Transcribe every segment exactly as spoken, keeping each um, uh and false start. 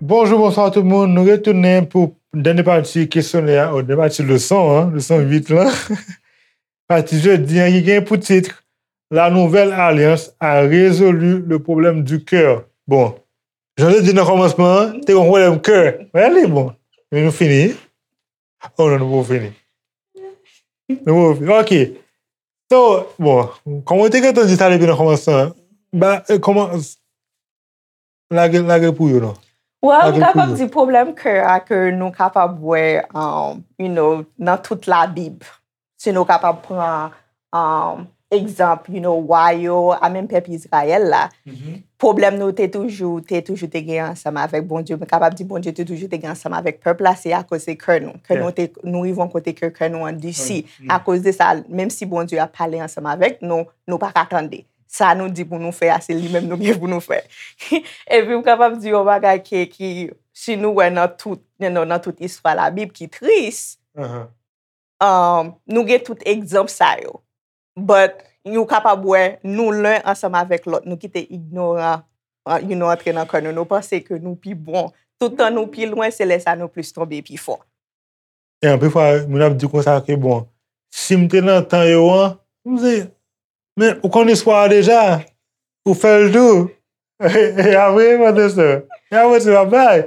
Bonjou, bonswa tout moun. Nou retounen pou dènye pati kesyonè a, o dènye pati leson an, leson uit lan. Pati jodi an ki gen pou tit La nouvelle alliance a résolu le problème du cœur. Bon, jan te di nan kòmansman an, te gen pwoblèm kè. Wè li, bon. Men nou fini. Oh non, nou poko fini. Nou poko fini. Ok. So, bon, kòman w te gentan di sa depi nan kòmansman an? Ba, eh, kòman, lage, lage pou yo, non? Well, m Lage pou kapab yo. Di pwoblèm kè a ke nou kapab wè, um, you know, nan tout Labib. Si nou kapab pran, um, egzanp, you know, wa yo, a menm pèp Izrayèl la, pwoblèm nou te toujou, te toujou te gen ansanm avèk Bondye. M kapab di Bondye te toujou te gen ansanm avèk pèp la, se akoz se kè nou. Kè nou te, nou rive yon kote ke kè nou andisi. Akoz de sa, menm si Bondye ap pale ansanm avèk nou, nou pa ka tande. Sa nou di pou nou fè a, se li menm nou gen pou nou fè. Epi m kapab di yon bagay ki, ki, si nou wè nan tout, nan, nan tout istwa Labib ki tris, um, nou gen tout egzanp sa yo. But, nou kapab wè, nou len ansanm avèk lòt, nou kite ignoran, uh, you know, antre nan kè nou. Nou panse ke nou pi bon. Tout tan nou pi lwen, se lè sa nou plis tonbe pi fò. E anpil fwa, moun ap di konsa ke, bon, si m te nan tan yo an, m di, men ou konn istwa a deja, ou fè l tou. E apre, frè e sè, e apre se pa bay.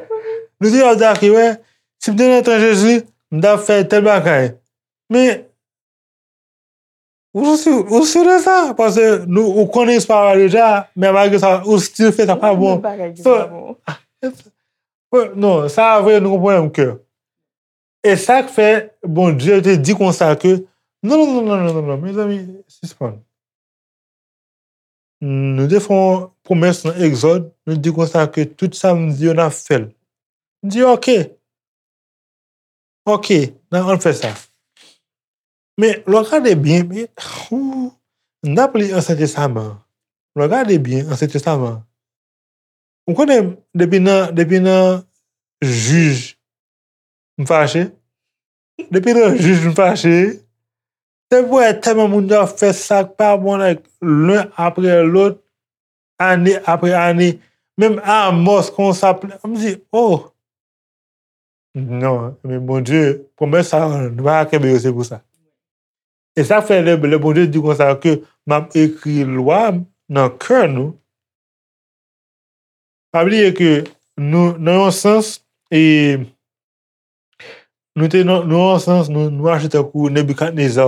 Nou di ap di, ok, wè, si m te nan tan Jezi, m t ap fè tèl bagay. Men, ou si, ou si de sa? Paske nou, ou konnen istwa a deja, men malgre sa, ou still fè sa pa bon. Bagay ki pa bon. Non, sa vre, nou konprann ke. E sa k fè Bondye te di konsa ke, non, non, non, mezanmi, sispann. Nou te fè yon pwomès nan Egzòd, nou di konsa ke tout sa m di yo n ap fè l. M di, ok. Ok, n a, ann fè sa. Men, lè w gade byen, men, ou, n ap li Ansyen Testaman an. Lè w gade byen Ansyen Testaman an, ou konnen, depi nan, depi nan Jij, m fache. Depi nan Jij, m fache. Depi w wè tèlman moun yo ap fè sa k pa bon, like, len apre lòt, ane apre ane. Menm Amòs konsa, m di, oh! Non, men Bondye, pwomès sa, nou pa ka kenbe yo, se pou sa. E sa fè lè, lè Bondye di konsa ke m ap ekri lwa m nan kè nou, pa bliye ke nou, nan yon sans, e, nou te nan, nan yon sans, nou, nou aji tankou Nebikadneza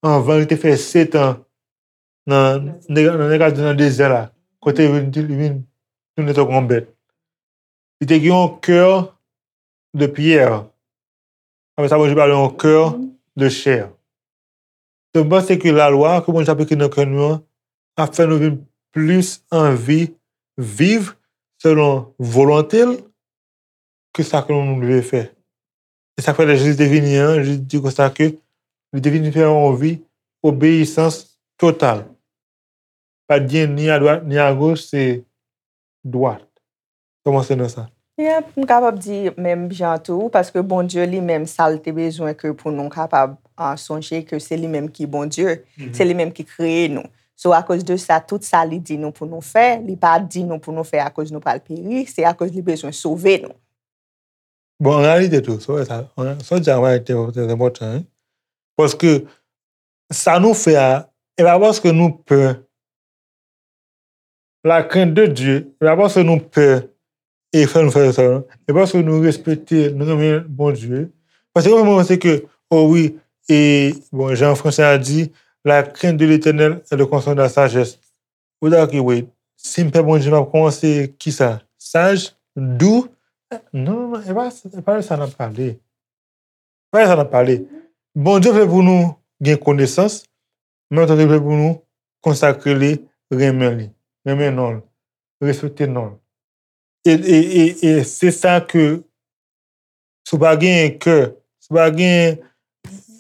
anvan li te fè sèt an nan, nan, nan, nan dezè la, kote li vin, li vin tounen tankou yon bèt. Li te gen yon kè de pyè. Apre sa, Bondye ba li yon kè de chè. Donk, m panse ke lalwa ke Bondye ap ekri nan kè nou an ap fè nou vin plis anvi viv selon volonte l ke sa ke nou dwe fè. E sa k fè lè Jezi te vini an, Jezi di konsa ke li te vini fè yon vi obeyisans total. Pa t gen ni adwat, ni agoch, se dwat. Kòmanse nan sa. Yep, m kapab di menm jan tou, paske Bondye li menm, sa l te bezwen ke pou nou kapab, ah, sonje ke se li menm ki Bondye, se li menm ki kreye nou. So, akoz de sa, tout sa li di nou pou nou fè, li pa di nou pou nou fè akoz nou pral peri, se akoz li bezwen sove nou. Bon, an reyalite tou, sa w wè sa, sa w di a, an reyalite, trè enpòtan, wi. Paske sa nou fè a, e pa paske nou pè. La crainte de Dieu, e pa paske nou pè e fè nou fè sa, non. E paske nou respekte, nou renmen Bondye. Paske mwen, mwen panse ke, oh wi, e, bon, jan fransè a di, la crainte de l'Éternel est le commencement de la sagesse. Ou ta ki, wait, si m pè Bondye, m ap kòmanse kisa? Saj, dou? Non, non, non, e pa, e pa de sa n ap pale. E pa de sa n ap pale. Bondye vle pou nou gen konesans, men menm tan li vle pou nou konsakre li, renmen li, renmen non l, respekte non l. E, e, e, e se sa ke, si w pa genyen kè, si w pa genyen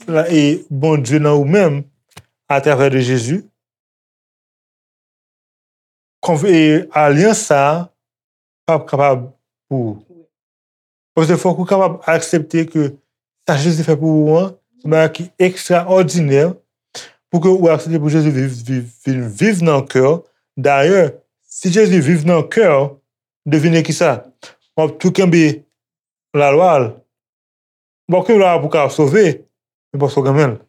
la, e Bondye nan ou menm, atravè de Jezi, konv-, e alyans sa a p ap kapab pou ou. Paske fòk ou kapab aksepte ke sa Jezi fè pou ou an, se yon bagay ki ekstraòdinè pou ke ou aksepte pou Jezi viv, viv, vin viv nan kè w. Dayè, si Jezi viv nan kè w, devine kisa? W ap tou kenbe lalwa l. W ap kenbe lalwa pou w ka sove, men paske w renmen l.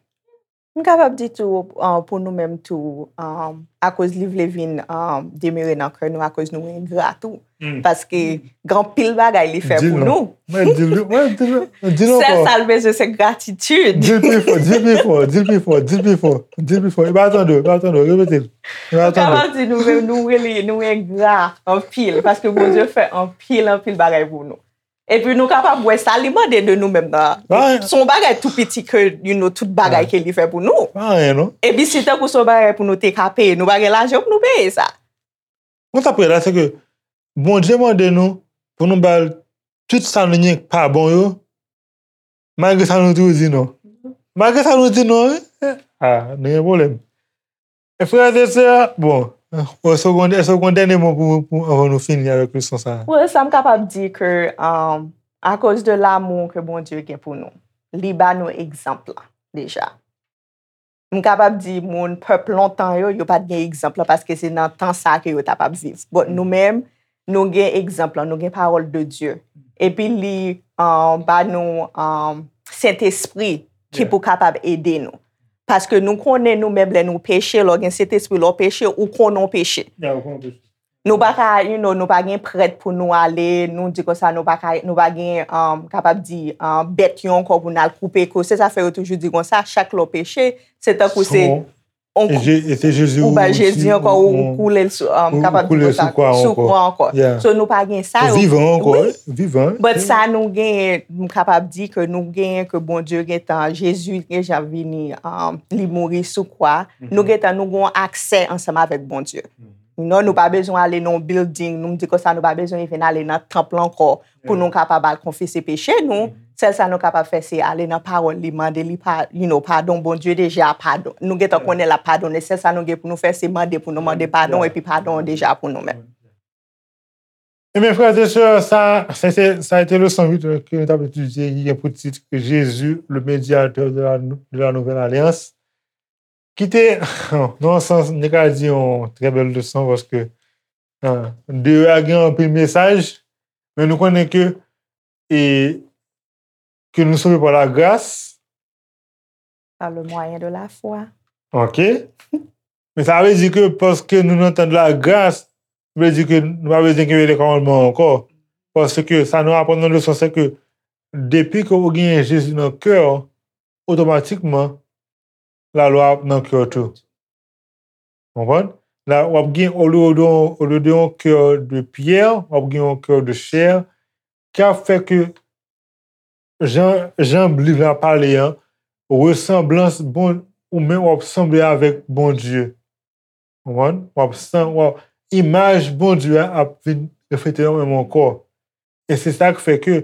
M kapab di tou, uh, pou nou menm tou, um, akoz li vle vin, um, demere nan kè nou, akoz nou engra tou. Paske gen anpil bagay li fè pou nou. Mwen di l, mwen di l, di l ankò. Sèl sa l bezwen se gratitid. Di l pi fò, di l pi fò, di l pi fò, di l pi fò, di l pi fò. E pa tande, e pa tande, repete l. E pa tande. M kapab di nou menm, nou rele, nou engra anpil, paske Bondye fè anpil, anpil bagay pou nou. Epi nou kapab wè sa li mande de nou menm nan. Se yon bagay tou piti ke, you know, tout bagay ke li fè pou nou. Pa anyen, non. Epi si tankou se yon bagay pou nou te ka peye, nou pa gen lajan pou nou peye sa. Mwen sa prè la, se ke Bondye mande nou pou nou ba l tout sa nou gen k pa bon yo, malgre sa nou toujou di non. Malgre sa nou di non, wi. Ah, nou gen pwoblèm. E frè e sè, bon, èske w gon, èske w gon dènye mo pou, pou, anvan nou fini avèk leson sa a? Wi, sa m kapab di ke, um, akoz de lamou ke Bondye gen pou nou, li ba nou egzanp la, deja. M kapab di moun pèp lontan yo, yo pa t gen egzanp la, paske se nan tan sa a ke yo t ap ap viv. But nou menm, nou gen egzanp la, nou gen pawòl de Dye. Epi li, um, ba nou, um, Sentespri ki pou kapab ede nou. Paske nou konnen nou menm lè nou peche, lè w gen Sentespri, lè w peche, ou konnen w peche. Nou pa ka, you know, nou pa gen prèt pou nou ale, nou di konsa, nou pa ka, nou pa gen, um, kapab di, um, bèt yo ankò pou n al koupe kou. Se sa fè yo toujou di konsa, chak lè w peche, se tankou se ou ba Jezi ankò, ou koule l sou, um, kapab di konsa, sou kwa ankò. So nou pa gen sa yo. Ou vivan ankò, wi. But sa nou genyen, m kapab di ke nou genyen ke Bondye gentan, Jezi gentan vini, um, li mouri sou kwa. Nou gentan, nou gen yon aksè ansanm avèk Bondye. Non, nou pa bezwen ale nan yon building, nou m di konsa, nou pa bezwen even ale nan tanp lan ankò pou nou kapab al konfese peche nou. Sèl sa nou kapab fè, se ale nan pawòl li, mande li pa, you know, padon. Bondye deja padon. Nou gentan konnen l ap padonnen. Sèl sa nou gen pou nou fè, se mande pou nou mande padon, epi padon an deja pou nou menm. Ebyen, frè e sè, sa, se te, sa a te leson uit ke nou t ap etidye, ki gen pou tit Jésus, le médiateur de la, de la nouvelle alliance. Ki te, nan yon sans, m te ka di yon trè bèl leson, paske, ah, deyò a gen anpil mesaj, men nou konnen ke, e, que nous sommes par la grâce. Par le moyen de la foi. Ok. Men sa vle di ke paske nou nan tan de la gras, vle di ke nou pa bezwen kenbe lè kòmandman ankò. Paske sa nou aprann nan leson, se ke depi ke ou genyen Jezi nan kè w, otomatikman, lalwa ap nan kè w tou. Konprann? La, w ap gen, olye de, olye de yon kè de pyè, w ap gen yon kè de chè, ki ap fè ke jan, jan liv la pale an, resanblans bon, ou menm w ap sanble avèk Bondye. Konprann? W ap san, w ap, imaj Bondye a ap vin reflete nan ou menm ankò. E se sa k fè ke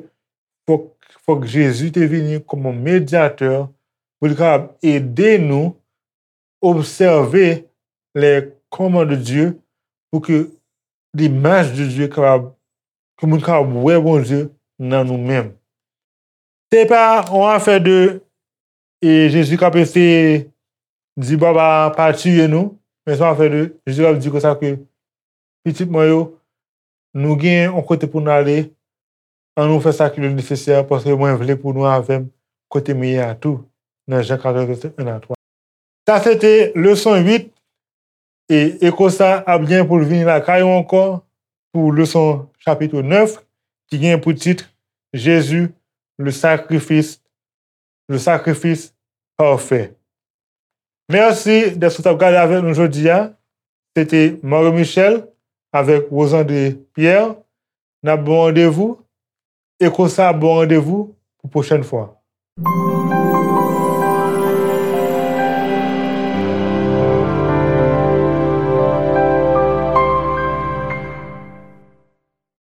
fòk, fòk Jezi te vini kòm yon medyatè pou li kapab ede nou obsève les commandements de Dieu pou ke limaj de Dye kapab, ke moun kapab wè Bondye nan nou menm. Se pa yon afè de, e, Jezi k ap eseye di Baba pa tiye nou, men se yon afè de Jezi k ap di konsa ke pitit mwen yo, nou gen yon kote pou n ale, ann nou fè sa ki le nesesè, paske mwen vle pou nou avè m kote m ye a tou, nan Jan katòz, vèsè en a twa. Sa se te leson uit, e, e konsa ap gen pou l vini lakay ou ankò pou leson chapit nèf, ki gen pou tit Jésus, le sacrifice, le sacrifice parfait. Mèsi dèske w t ap gade avèk nou jodi a. Se te Mario Michel avèk Rosandre Pierre. N ap ba w randevou, e konsa ap ba w randevou pou pwochèn fwa.